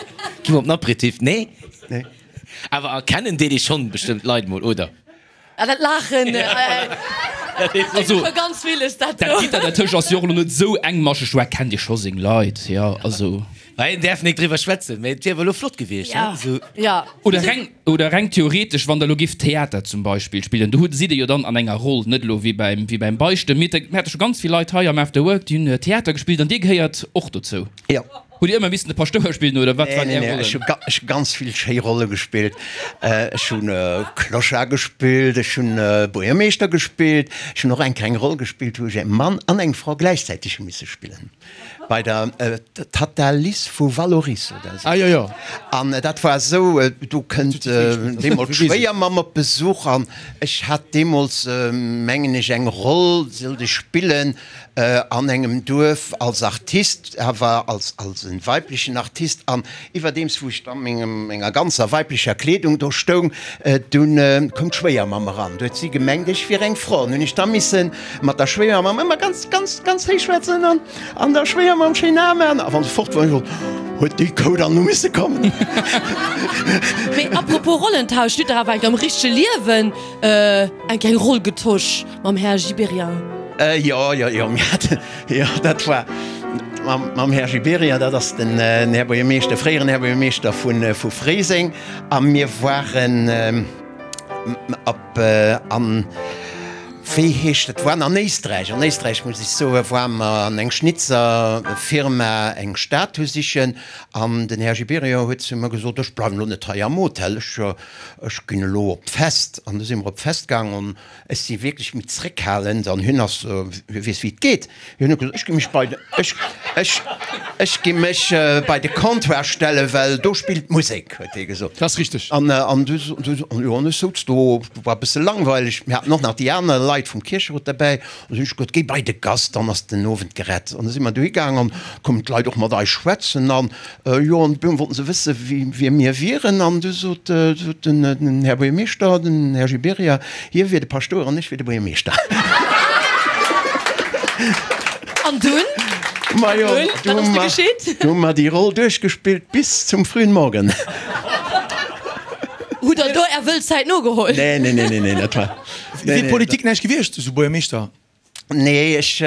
gi mer op den Aperitif. Nee? Nee. Awer erkennen deet ee schonn bestëmmt d'Leit mol, oder? Ah, dat Laachen, Also, ganz villes dat dat Gitter dertëscht ass jo och elo net esou engmascheg, do erkennt ee scho seng Leit, jo, also. Mä een däerf nik driwwer schwätzen, mä et wier awer elo flott gewiescht, Ja, esou. ja. Oder reng, oder reng theoretesch, wann Der elo giff Theater zum Beispill spillen, do hutt, sidd Dir jo dann an enger Roll, net elo wéi beim, wéi beim Beichten. Mir mir hate scho ganz vill Leit hei am After Work, déi hunn Theater gespillt an Dir gehéiert och dozou. Jo. Hutt Dir ëmmer missen de Paschtouer spillen oder wat waren Nee, Är nee, Rollen? ech hu ech hu ganz vill schéi Rolle gespillt. Ech hunn Clochard gespillt, ech hunn Buergermeeschter gespillt, ech hunn och eng kleng Roll gespillt, wou ech e Mann an eng Fra gläichzäiteg hu misse spillen, bei der Tatta Liss vu Vallauris oder esou. Ah jo, jo. An dat war esou, do kënnt deemools d'Schwéiermamm op Besuch an ech hat deemools, mengen ech, eng Roll sollt ech spillen, an engem Duerf als Artist, awer als als en weiblechen Artist, an iwwerdeems wou ech da mengem menger ganzer weiblecher Kleedung do stoung, dunn koum d'Schwéiermamm eran. Du huet si gemengt ech wier eng Fra, an hunn ech da misse mat der Schwéiermamm ëmmer ganz ganz ganz héich schwätzen an an der Schwéiermamm schéin Ae maachen, a wann se fort war, hunn ech gesot, huet déi Kou dann nu misse kommen. Mee apropos Rollentausch, dir hutt dach awer enk am richtege Liewen eng kleng Roll getosch. Mam Här Gibéryen. Jo, jo, jo, mir haten, jo, dat war mam, mam Här Gibéryen, dat ass den Här Buergermeeschter, fréieren Här Buergermeeschter vu, vu Fréiseng. A mir waren op, an, wéi heescht et, waren an Éisträich, an Éisträich muss ech soen, ware mer an eng Schnitzerfirma eng Statue sichen. An den Här Gibéryen huet zu mer gesot, ech bleiwen elo net hei am Hotel, ech, ech ginn elo op d'Fest. An du si mer op d'Fest gaangen. Ech si wierklech méi zréckhalend an hien ass, hie weess wéi et geet. Hien huet gesot, ech gi mech bei de, ech, ech, ech gi mech bei de Comptoir stellen, well do spillt d'Musek, huet hie gesot. Dat ass richteg. An, an du, du, jo, an ech souz do, war e bësse langweileg, mir haten och nach déi aner Leit vum Kiercherot derbäi, an du hunn ech gesot, géi bei de Gast, dann ass den Owend gerett. An da si mer dohi gaang an koumen d'Leit och mat eis schwätzen an, Jo, an du wollten se wësse wie mir wieren, an du sot den Här Buergermeeschter, den Här Gibéryen, hie wier de Paschtouer an ech wier de Buergermeeschter. An dunn? Majo, Wat ass du geschitt? Du hu mer déi Roll duerchgespillt bis zum frühen Morgen. Hutt der do Är wëll Zäit nogeholl? Nee, nee, nee, nee, dat war. Wier Politik näischt gewiescht, esou Buergermeeschter? Nee, ech,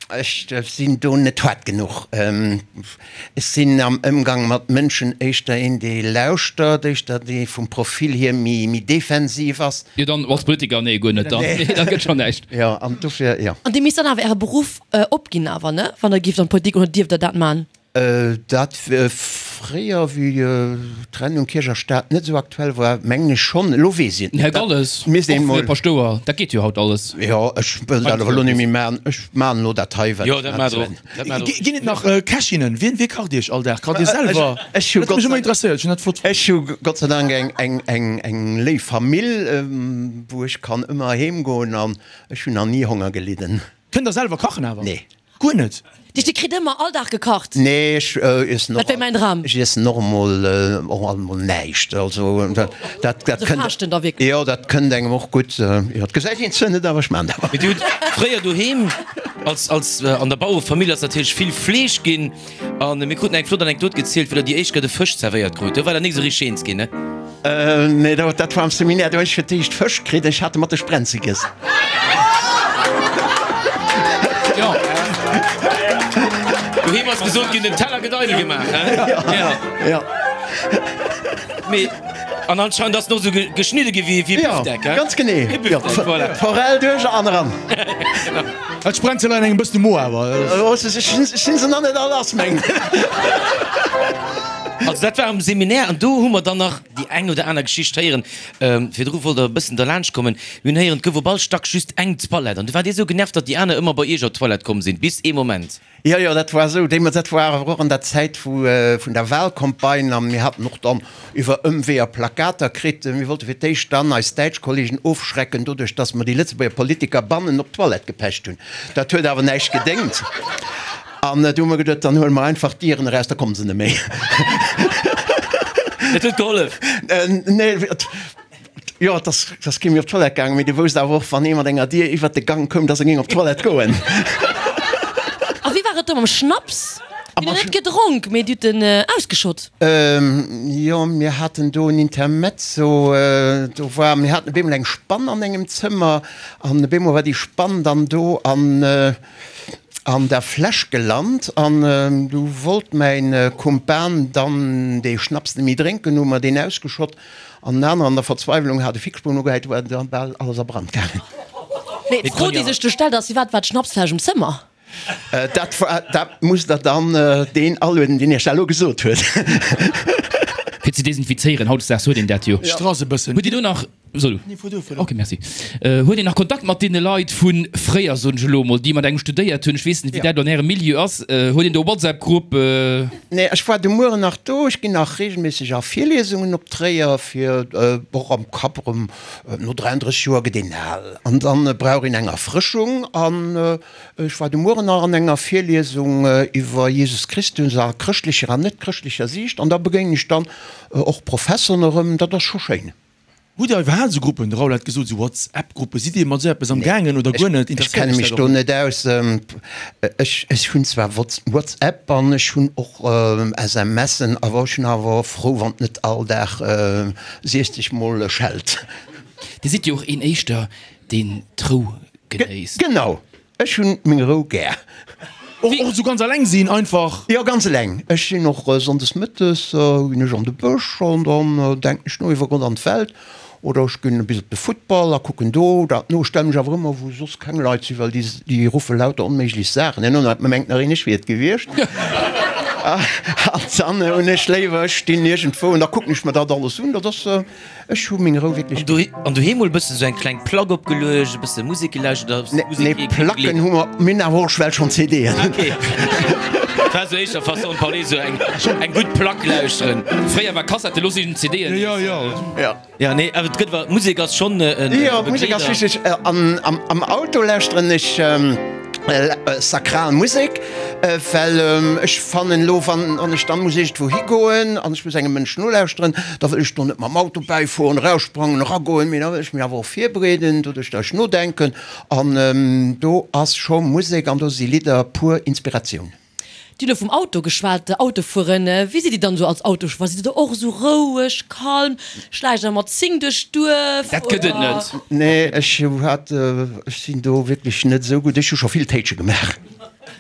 ech sinn do net haart genuch. Ech sinn am Ëmgang mat Mënschen éischter een, dee lauschtert, éischter dee vum Profil hier méi, méi defensiv ass. Jo, dann als Politiker, nee, guer net dann. Nee, da gëtt schonn näischt. Jo, an dofir, jo. An Dir misst dann awer Äre Beruff opginn awer, ne? Wann Der gift an d'Politik, oder dierft Der dat man? Dat fréier, wéi d'Trennung Kierch a Staat net esou aktuell war, mengen ech schonn. Elo weess ech et net. Här Galles, och fir Paschtouer, dat geet jo haut alles. Jo, ech wëll dat awer elo net méi maachen. Ech maachen elo dat hei, wat ech maache wëll. Ginn et nach Kächinnen? Wien, wie kacht Iech all Dag? Kacht Dir selwer? Ech hu Dat huet mech ëmmer interesséiert. Ech hunn dat flott fonnt. Ech hu Gott sei Dank eng, eng, eng léif Famill, wou ech kann ëmmer heem goen an ech hunn nach ni Honger gelidden. Kënnt der selwer kachen awer? Nee. Guer net? Dich, dir kritt ëmmer all Dag gekacht? Nee, ech iessen och. Dat wär mäin Dram. Ech iessen och emol, och alt emol näischt. Also dat, dat Also kënnt. faaschten da wierklech? Jo, dat kënnt engem och gutt. Jo, et gesäit een zwar net, awer ech maan dat. Mee dir hutt fréier doheem als, als an der Bauerefamill ass natierlech vill Fleesch ginn. An mir kruten eng flott Anekdot gezielt, wéi der déi éischt Kéier de Fësch zerwéiert krut. Do war der nik esou richteg eens ginn, ne? Nee, dat war am Seminaire. Do hunn ech fir d'éischt Fësch kritt. Ech hat e mat de Sprenze giess. Jo. Doheem ass gesot ginn, den Teller gëtt eidel gemaach, he? Jo. Mee. An anscheinend ass en och esou geschnidde gi wéi e Bifdeck, he? Ganz genee. E Bifdeck, voilà. D'Forell duerch an eran. Et sprengt se leider engem bëssen de Mo awer. Ech sinn se nach net all lass, mengen. Also dat war am Seminär an do hu mer dann nach déi eng oder aner Geschicht héieren. Virdru wollt der e bëssen derlaanscht kommen. Mir hunn héieren, et gouf op all Stack just eng Toilette an du waart Dir esou genervt, datt déi aner ëmmer bei Iech op d'Toilette komm sinn, bis ee Moment. Jo, jo, dat war esou. Deemools, dat war awer och an der Zäit vu vun der Wahlcampagne a mir haten och dann iwwer Ëmweeër Plakater kritt. Mir wollte fir d'éischt dann eis däitsch Kollegen ofschrecken doduerch, dass mer déi Lëtzebuerger Politiker bannen op d'Toilette gepecht hunn. Dat huet awer näischt gedéngt. An du hu mer geduet, dann huele mer einfach d'Dieren eraus, da komme se net méi. Dat huet gehollef? Nee, Jo, et ass, et ass kee méi op d'Toilette gaangen, mee du wousst awer och, wann ee mat enger Dier iwwert de Gang koum, dass e géing op d'Toilette goen. A wéi war et do mam Schnaps? Dir hutt en net gedronk, mee Dir hutt en ausgeschott? Jo, mir haten do en Intermezzo. Do war, mir haten op eemol eng Spann an engem Zëmmer an op eemol war déi Spann dann do an an der Fläsch gelant an du wollt mäin Kumpan dann dee Schnaps net méi drénken, hu mer deen ausgeschott. An en aneren an der Verzweiwlung hat e Fixspuan ugehäit, do war dann bal alles a Brand gaangen. Mee d'Fro déi sech do stellt ass, Firwat war d'Schnapsfläsch um Zëmmer? Dat war, dat musst der dann deen alueden, deen iech dat elo gesot huet. Fir ze desinfizéieren, hautdesdaags huet een dat jo. Strass e bëssen. Huet Dir do nach. Soll du? Nee, fuer du, fuer du. Ok, merci. Huet een nach Kontakt mat deene Leit vu fréier, soen ech elo emol, déi mat engem studéiert hunn? Ech weess net, wéi dat an Ärem Milieu ass. Huet een do e WhatsApp-Grupp? Nee, ech war de Mueren nach do. Ech ginn nach reegelméisseg a Virliesungen op Tréier, fir och am Kapp erëm, no 33 Joer gëtt een al an dann brauch een eng Erfrëschung. An ech war de Mueren nach an enger Virliesung iwwer Jesus Christus a chrëschtlecher an net-chrëschtlecher Siicht an da begéinen ech dann och Professoren erëm. Dat ass scho schéin. Hutt Dir iwwerhaapt esou Gruppen, de Raoul hat gesot, esou Whatsapp-Gruppen, sidd Dir mat esou eppes am gaangen oder guer net? Ech kenne mech do net aus. Ech hunn zwar Whatsapp an ech hunn och SMSen, awer ech hunn awer frou, wann et net all Dag 60 mol schellt. Dir sidd jo och een éischter, deen d'Rou genéisst. Genau, Ech hunn meng Rou gär. Och esou ganz eleng sinn einfach? Jo, ganz eleng. Ech sinn och sonndes mëttes ginn ech an de Bësch an dann denken ech no iwwer Gott an d'Welt. Oder ech ginn bis op de Futtball a kucken do dat no. Ech stelle mech awer ëmmer wou soss keng Leit sinn, well déi déi ruffe lauter onméiglech Saachen. Herno mengt nach een ech wier et gewiescht. An dann hunn ech léiwer ech stinn iergendwou an da kucken ech mer dat alles un. Dat ass. Ech hu meng Rou wierklech gär. An doheem mol e bëssen esou eng kleng Plack opgeluecht, e bësse Musek gelauschtert oder Musek Nee, Placken hu mer, mir hunn awer och well schonn CDen. Ok, dat war esou éischter Façon de parler, esou eng eng gutt Plack lauschteren. Fréier war Kassette, elo sinn CDen. Jo, jo. Jo. Jo, nee, awer et gëtt awer, Musek ass schonn e Begleeder. Jo, Musek ass wichteg. An am Auto lauschteren ech sakral Musek, well ech fannen elo, wann ech dann muss iergendwou higoen an ech muss engem Mënsch nolauschteren, da wëll ech do net mam Auto bäifueren, eraussprangen, eragoen, mee da wëll ech mech awer och virbereeden, doduerch datt ech nodenken an do ass scho Musek an do si Lidder pur Inspiratioun. Dir hutt elo vum Auto geschwat, Autofueren. Wéi sidd Dir dann esou als Autochauffeur? Sidd Dir do och esou roueg, kalm? Schläicht Der mat 10 duerch d'Duerf? Dat gëtt et net. Nee, ech hat, ech sinn do wierklech net esou gutt. Ech hu scho vill Téitsche gemaach.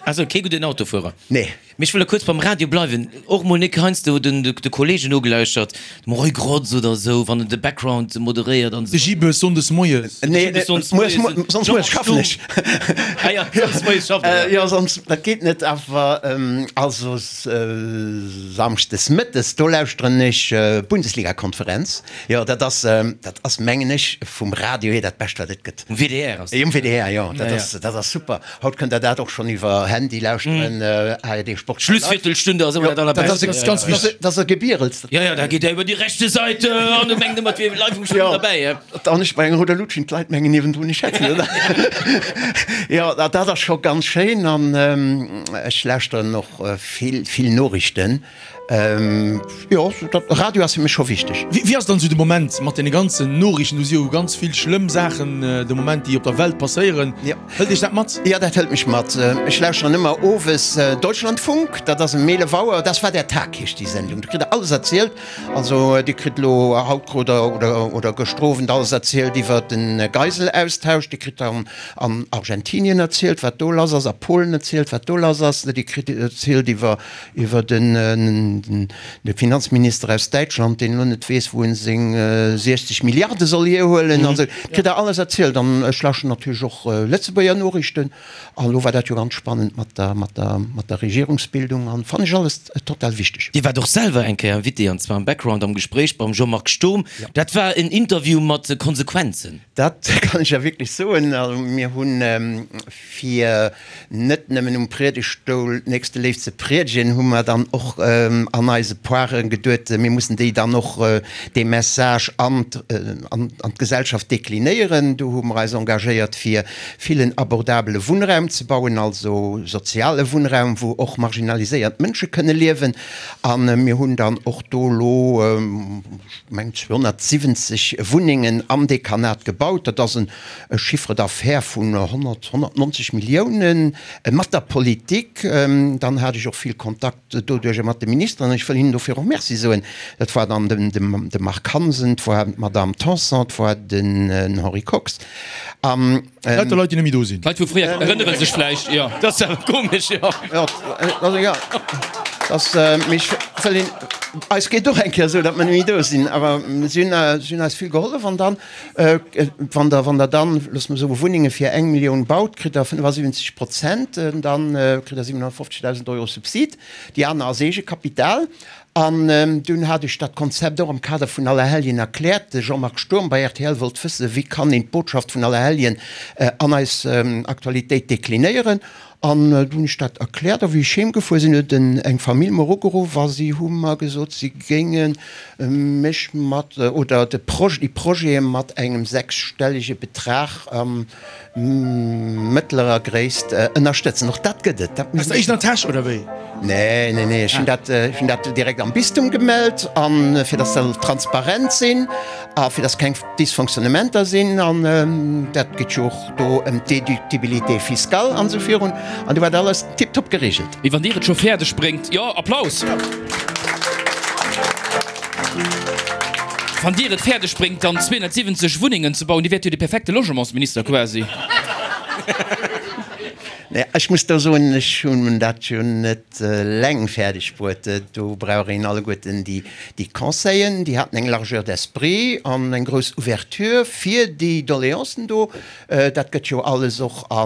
Also kee gudden Autofuerer. Nee. Mee ech wëll da kuerz beim Radio bleiwen. Och mol nik heiansdo den de Kollegen nogelauschtert, dem Roy Grotz oder esou, wann en de Background moderéiert an esou. De Gibes sonndes moies. Nee, sonst moies schaffen ech. Ah ja, sonst moies schafft er, ja. Jo, sonst, dat geet net. Awer also samschdes mëttes, do lauschteren ech Bundesligakonferenz. Jo, dat ass, dat ass mengen ech vum Radio hier dat Bescht wat et gëtt. Um WDR ass dat. Um WDR, jo, dat ass, dat ass super. Haut kënnt der dat och schonn iwwer Handy lauschteren, ARD Sport. Schlussviertelstunde ass ëmmer dat allerbescht. Dat ass ganz wichteg. Dat ass e Gebierels. Jo, jo, da geet der iwwer déi rechte Seite an du mengt ëmmer, et wier live um Spill derbäi. Jo, an ech bei enger rouder Lut schinn, d'Leit mengen niewendrun, ech hätt se net. Jo, dat ass scho ganz schéin an ech lauschteren och vill, vill Noriichten. Jo, Radio ass fir mech scho wichteg. Wéi ass dann esou de Moment mat deene ganzen Noriichten? Do si jo ganz vill schlëmm Saachen de Moment, déi op der Welt passéieren. Hëlt Iech dat mat? Jo, dat hëlt mech mat. Ech. lauschteren ëmmer owes Deutschlandfunk, dat ass ëm 11 Auer, Das war der Tag heescht déi Sendung, do kritt der alles erzielt. Also Dir kritt elo haut krut der oder oder gëschter Owend alles erzielt iwwer de Geiselaustausch, Dir kritt dann an Argentinien erzielt wat do lass ass, a Polen erzielt wat do lass ass, Dir kritt erzielt iwwer iwwer den de Finanzminister aus Däitschland, deen elo net weess wou en seng 60 Milliarde soll hierhuelen an esou. Kritt der alles erzielt an ech lauschteren natierlech och Lëtzebuerger Noriichten. An elo war dat jo ganz spannend mat der, mat der, mat der Regierungsbildung an fannen ech alles total wichteg. Dir waart och selwer eng Kéier Invité, an zwar am Background am Gespréich beim Jean-Marc Sturm. Dat war en Interview mat Konsequenzen. Dat kann ech ja wierklech soen. Also mir hunn, fir net nëmmen um Priedegtstoul d'Nächsteléift ze priedegen, hu mer dann och an eise Poire geduet, mir mussen déi dann och dee Message an d'Gesellschaft deklinéieren. Do hu mer eis engagéiert fir villen abordabele Wunnraum ze bauen, also soziale Wunnraum, wou och marginaliséiert Mënsche kënne liewen. A mir hunn dann och do elo, ech mengen, 270 Wunnengen am Dekanat gebaut. Dat ass e Chiffre d'affaires vun 100, 190 Milliounen mat der Politik. Dann hat ech och vill Kontakt doduerjer mat de Ministeren. Ech wëll hinnen dofir och Merci soen. Dat war dann de Marc Hansen, 't war d'Madame Tanson, 't war den Henri Kox. An. Lauter Leit, déi net méi do sinn. D'Leit vu fréier erënnere sech vläicht, jo. Dat ass awer komesch, jo. Jo, also jo, dass, mee ech wëll een, eis geet och eng Kéier esou, datt mer net méi do sinn, awer si hunn, si hunn eis vill gehollef. An dann, wann Der, wann Der dann, loosse mer soen, Wunnenge fir eng Millioun baut, kritt Der 75 Prozent, dann kritt Der 750.000 Euro Subsid, déi aner ass Eegekapital. An dunn hat ech dat Konzept och am Kader vun Allerhelljen erkläert. De Jean-Marc Sturm bei rtl wollt wëssen, wéi kann een d'Botschaft vun Allerhelljen an eis Aktualitéit deklinéieren. An du hunn ech dat erkläert. A wéi ech heem gefuer sinn, huet eng Famill mer ugeruff a si hu mer gesot, si géinge mech mat, oder de Projet, déi Projete mat engem sechsstellege Betrag Mëttlerer Gréisst ënnerstëtzen. Och dat gëtt et. Dat Aus der eegener Täsch, oder wéi? Nee, nee, nee, ech hunn dat, ech hunn dat direkt am Bistum gemellt, an fir dass se transparent sinn a fir dass keng Dysfonctionnementer sinn. An dat geet jo och do ëm d'Déductibilité fiscale an esou virun. An do war dat alles tiptop geregelt. Mee wann Dir et scho fäerdeg bréngt, jo, Applaus! Wann Dir et fäerdeg bréngt, dann 270 Wunnengen ze bauen, Dir wäert jo de perfekte Logementsminister quasi. Nee, ech muss do soen, ech hunn dat jo net eleng fäerdeg bruet. Do brauch een alleguerten déi Conseillen, déi haten eng Largeur d'esprit an eng grouss Ouverture fir déi Doléancen do. Dat gëtt jo alles och a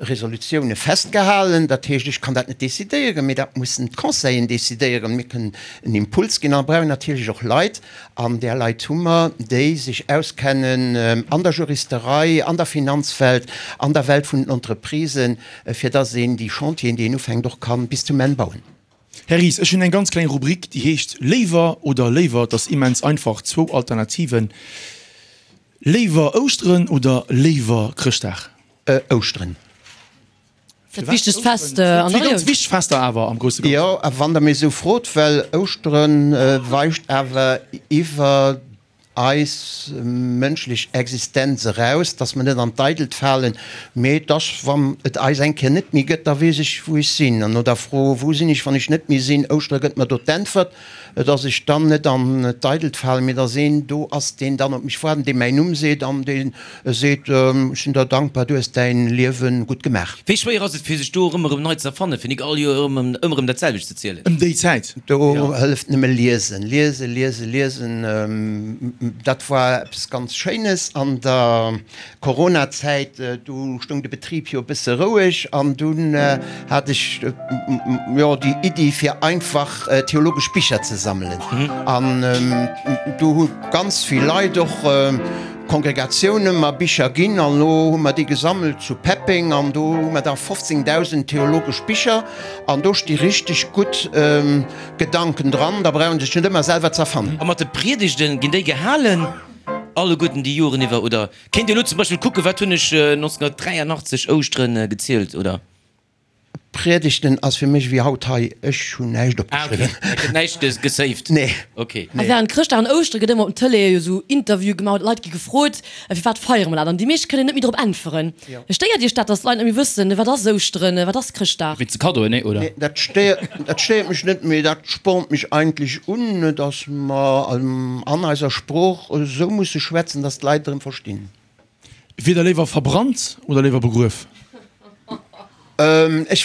Resolutioune festgehalen. Dat heescht, ech kann dat net decidéieren, mee dat mussen d'Conseillen decidéieren. Mir kënnen en Impuls ginn a brauchen natierlech och Leit, an där Leit hu mer, déi sech auskennen an der Juristerei, an der Finanzwelt, an der Welt vun den Entreprisen, fir dass een déi Chantieren, déi een ufänkt, och ka bis zum Enn bauen. Här Ries, ech hunn eng ganz kleng Rubrik, déi heescht Léiwer oder léiwer. Et ass immens einfach, zwou Alternativen. Léiwer Ouschteren oder léiwer Chrëschtdag? Ouschteren. Dat wichtegst Fest an der Zwee ganz wichteg Fester awer am grousse Ganzen. Jo, a wann Der mir esou frot, well Ouschteren weist awer iwwer eis mënschlech Existenz eraus, dass mer net an d'Eidelt falen, mee dass, wann et eis eng Kéier net méi gëtt, da weess ech, wou ech sinn. An no der Fro, Wou sinn ech, wann ech net méi sinn? Ouschtere gëtt mer do d'Äntwert. Dass ech dann net an d'Eidelt falen, mee dass een do ass, deen dann op mech waart an dee mäin Numm seet an dee seet, Ech sinn der dankbar, du hues däin Liewe gutt gemaach. Wéi schwéier ass et fir sech do erëm erëm nei ze erfannen, fir nik all Joer erëm ëmmer erëm dat selwecht ze zielen? Ëm déi Zäit. Do hëlleft nëmme liesen, liesen, liesen, liesen. Dat war eppes ganz Schéines an der Coronazäit, do stoung de Betrib jo e bësse roueg an dunn hat ech jo déi Iddi fir einfach theologesch Bicher ze sammelen. An do hu ganz vill Leit, och Kongregatioune mer Bicher ginn an elo hu mer déi gesammelt zu Peppeng an do hu mer da 15.000 theologesch Bicher an do sti richteg gutt Gedanken dran, da brauch een sech net ëmmer selwer z'erfannen. A mat de Priedegten, ginn déi gehalen? Alleguerten déi Joren iwwer, oder kéint Dir elo zum Beispill kucken, wat hunn ech 1983 Ouschteren gezielt, oder? Priedegten ass fir mech ewéi haut hei, ech hunn näischt Ah, okay. opgeschriwwen. Et gëtt näischt gesaved? Nee. Okay. A während Chrëschtdag an Ouschtere gëtt ëmmer op den Tëleeë jo sou Interviewe gemaach, d'Leit gi gefrot, Firwat feiere mer dat? An déi meescht kënnen net méi drop äntweren. Stéiert Iech dat, datt d'Leit net méi wëssen, wat ass Ouschteren, wat ass Chrëschtdag? Wéinst de Kaddoen, nee, oder? Nee, dat stéiert, dat stéiert mech net, mee dat spornt mech eigentlech un, datt mer an eiser Sprooch esou musse schwätzen, datt d'Leit erëm verstinn. Wier der léiwer verbrannt oder léiwer begruef? Ech,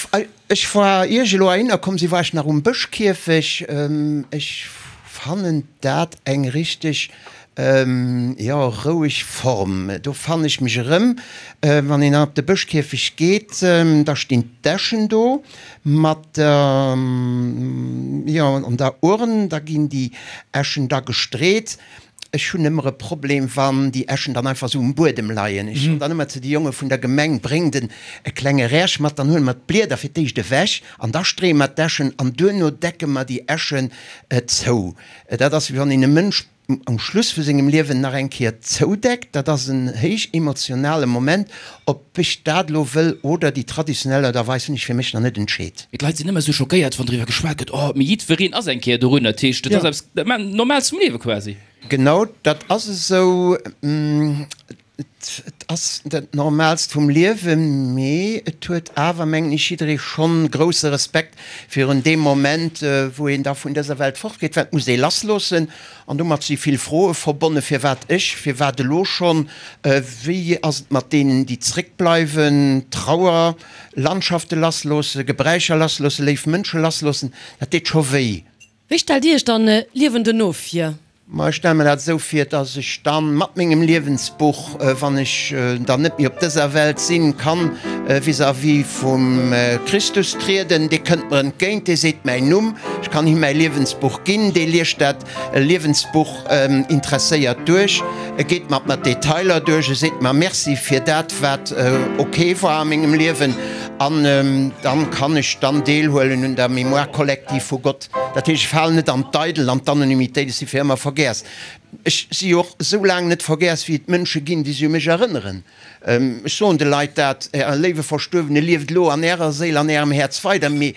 ech war, ier ech elo heihinner komm sinn, war ech nach um Bëschkierfech. Ech fannen dat eng richteg, jo, roueg Form. Do fannen ech mech erëm. Wann een dann op de Bëschkierfech geet, da stinn d'Äschen do mat der, jo, an der Urn. Da ginn déi Äschen da gestreet. Ech hunn ëmmer e Problem, wann déi Äschen dann einfach esou um Buedem leien. Ech soen dann ëmmer zu de Jonge vun der Gemeng, Bréngt en e klenge Räerch mat, dann huele mer d'Blieder fir d'éischt ewech an da streeë mer d'Äschen an duerno decke mer déi Äschen zou. Dat ass, wéi wann een e Mënsch um Schluss vu sengem Liewen nach eng Kéier zoudeckt. Dat ass en héich emotionale Moment. Ob ech dat elo wëll oder déi traditionell Aart a Weis, hunn ech fir mech nach net entscheet. Mee d'Leit sinn ëmmer esou schockéiert, wann driwwer geschwat gëtt, oh, mee jiddwereen ass eng Kéier dorunner. Dat heescht, dat ass eppes Normales vum Liewe quasi. Genau, dat ass esou. Et ass dat Normaalst vum Liewen, mee et huet awer, mengen ech, jidderee schonn grousse Respekt virun deem Moment, wou een da vun dëser Welt fortgeet, well et muss ee lassloossen. An domat si vill Froe verbonnen, Firwat ech? Firwat elo schonn? Wéi ass et mat deenen, déi zréckbleiwen? Trauer. Landschafte lassloossen, Gebräicher lassloossen, léif Mënsche lassloossen, dat deet scho wéi. Wéi stellt Dir Iech dann d'Liewen duerno vir? Ma ech stelle mer dat esou vir, dass ech dann mat mengem Liewensbuch, wann ech dann net méi op dëser Welt sinn, kann vis-à-vis vum Christus trieden. Dee kënnt mer entgéint, dee seet mäin Numm, ech kann him mäi Liewensbuch ginn, dee liest dat Liewensbuch interesséiert duerch, e geet mat mer d'Detailer duerch, e seet mer Merci fir dat, wat ok war a mengem Liewen, an dann kann ech dann deelhuelen un der Mémoire collective vu Gott. Dat heescht, ech falen net an d'Eidel, an d'Anonymitéit, ech si fir ëmmer vergäss. Ech si jo och esou laang net vergäss, wéi et Mënsche ginn, déi sech u mech erënneren. Ech soen de Leit dat, Äre léiwe Verstuerwene lieft elo an Ärer Séil, an Ärem Häerz weider, mee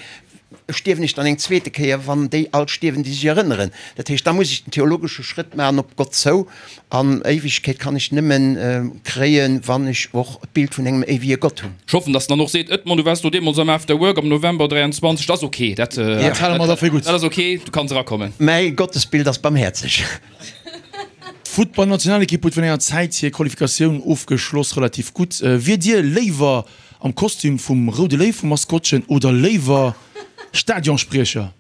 stierwen ech dann eng zweete Kéier, wann déi all stierwen, déi sech erënneren? Dat heescht, da muss ech den theologesche Schrëtt maachen op Gott zou, an Éiwegkeet kann ech nëmme kréien, wann ech och d'Bild vun engem éiwege Gott hunn. Ech hoffen, dass en dann och seet, Edmond, du waars do deemools am After Work am November 23, dat ass ok, dat hale mer da fir gutt. Dat ass ok, du kanns erakommen. Mäi Gottesbild ass barmhäerzeg. D'Futtballnationalekipp huet virun enger Zäit hir Qualifikatioun ofgeschloss, relativ gutt. Wiert Dir léiwer am Kostüm vum Roude Léiw vum Maskottchen oder léiwer Stadionspriecher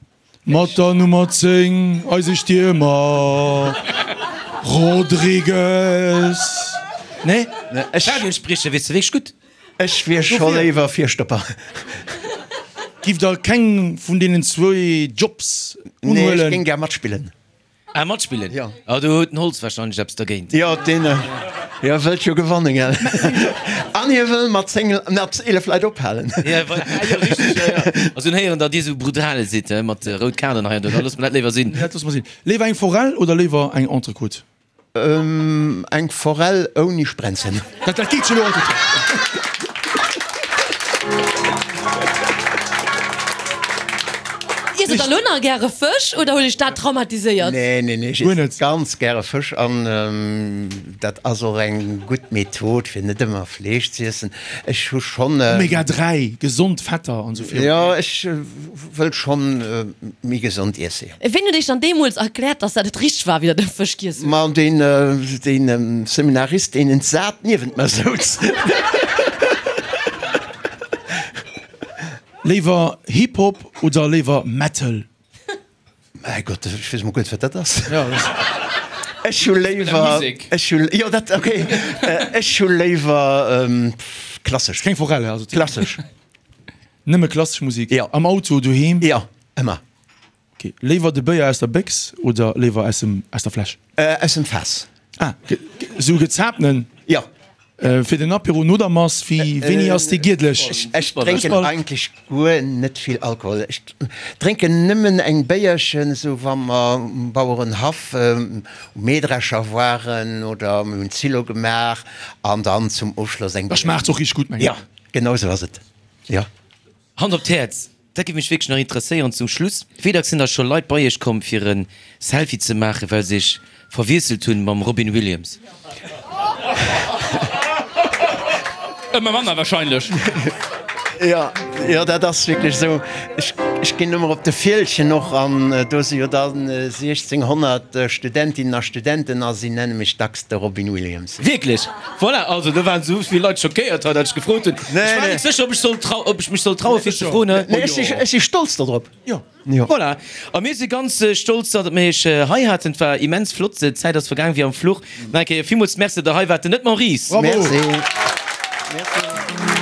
mat der Nummer 10, eise Stiermer Rodrigues? Nee? Stadionspriecher wiers de wierklech gutt. Ech wier scho léiwer Virstopper. Giff der keng vun deenen zwou Jobs unhuelen? Nee, ech géing gär matspillen. Ah, matspillen? Jo. Ah, do huet den Holtz wahrscheinlech eppes dergéint. Jo, deen, jo, wëllt jo gewannen, gell? An hie wëll mat 10, mat 11 Leit ophalen. Ja, wa, ah, jo, richteg, jo, jo. Also hunn héieren, datt Dir esou brutal sidd, he, mat rout Kaarten hei an do. Da loosse mer dat léiwer sinn. Dat loosse mer sinn. Léiwer eng Forell oder léiwer eng Entrecôte? Eng Forell ouni Sprenzen. Dat dat geet jo lo. Iesst der elo nach gäre Fësch oder huet iech dat traumatiséiert? Nee, nee, nee, ech iessen ganz gäre Fësch an dat ass och eng gutt Method fir net ëmmer Fleesch z'iessen. Ech hu schonn. Omega 3, gesond Fetter an esou virun. Jo, ech wëll schonn méi gesond iessen, jo. Ween huet iech dann deemools erkläert, dass dat net richteg war, wéi der de Fësch giess hutt? Ma deen, deen Seminarist, deen entsat niewent mer souz. Léiwer Hip Hop oder léiwer Metal? Mäi Gott, ech weess emol guer net, wat dat ass. Ech hu léiwer, ech hu, jo dat, ok, ech hu léiwer klassesch. Keng Forelle, also. Klassesch. Nëmme klassesch Musik? Jo. Am Auto, doheem? Jo, ëmmer. Ok. Léiwer de Béier aus der Béchs oder léiwer aus dem, aus der Fläsch? Aus dem Faass. Ah, sou gezaapten? Jo. Fir den Apéro no der Mass, wéi, wéini ass dee giedlech? Ech drénken eigentlech guer net vill Alkohol. Ech drénken nëmmen eng Béierchen, esou wa mer um Bauerenhaff um Mähdrescher waren oder mir hunn Zillo gemaach an dann zum Ofschloss eng Da schmaacht's och richteg gutt, mengen ech. Jo, genau esou ass et, jo. Hand op d'Häerz, dat géif mech wierklech nach interesséieren zum Schluss, Wéi dacks sinn da scho Leit bei Iech komm fir e Selfie ze maachen, well se Iech verwiesselt hunn mam Robin Williams? Ëmmer manner wahrscheinlech. Jo, jo, dat ass wierklech esou. Ech, ech ginn ëmmer op de Fieldgen och an do si jo dann 1600 Studentinnen a Studenten a si nenne mech dacks de Robin Williams. Wierklech? Voilà, also do waren esou vill Leit schockéiert hei, datt ech gefrot hunn. Ech war net sécher, ob ech soll trau, ob ech mech soll traue fir ze froen. Nee, ech si, ech si stolz dodrop. Jo. Voilà, a mir si ganz stolz, datt mir iech hei haten. Et war immens flott, d'Zäit ass vergaang wéi am Fluch. Nach eng Kéier villmools Merci, datt der hei waart. Den Edmond Ries. Bravo. Merci. Merci.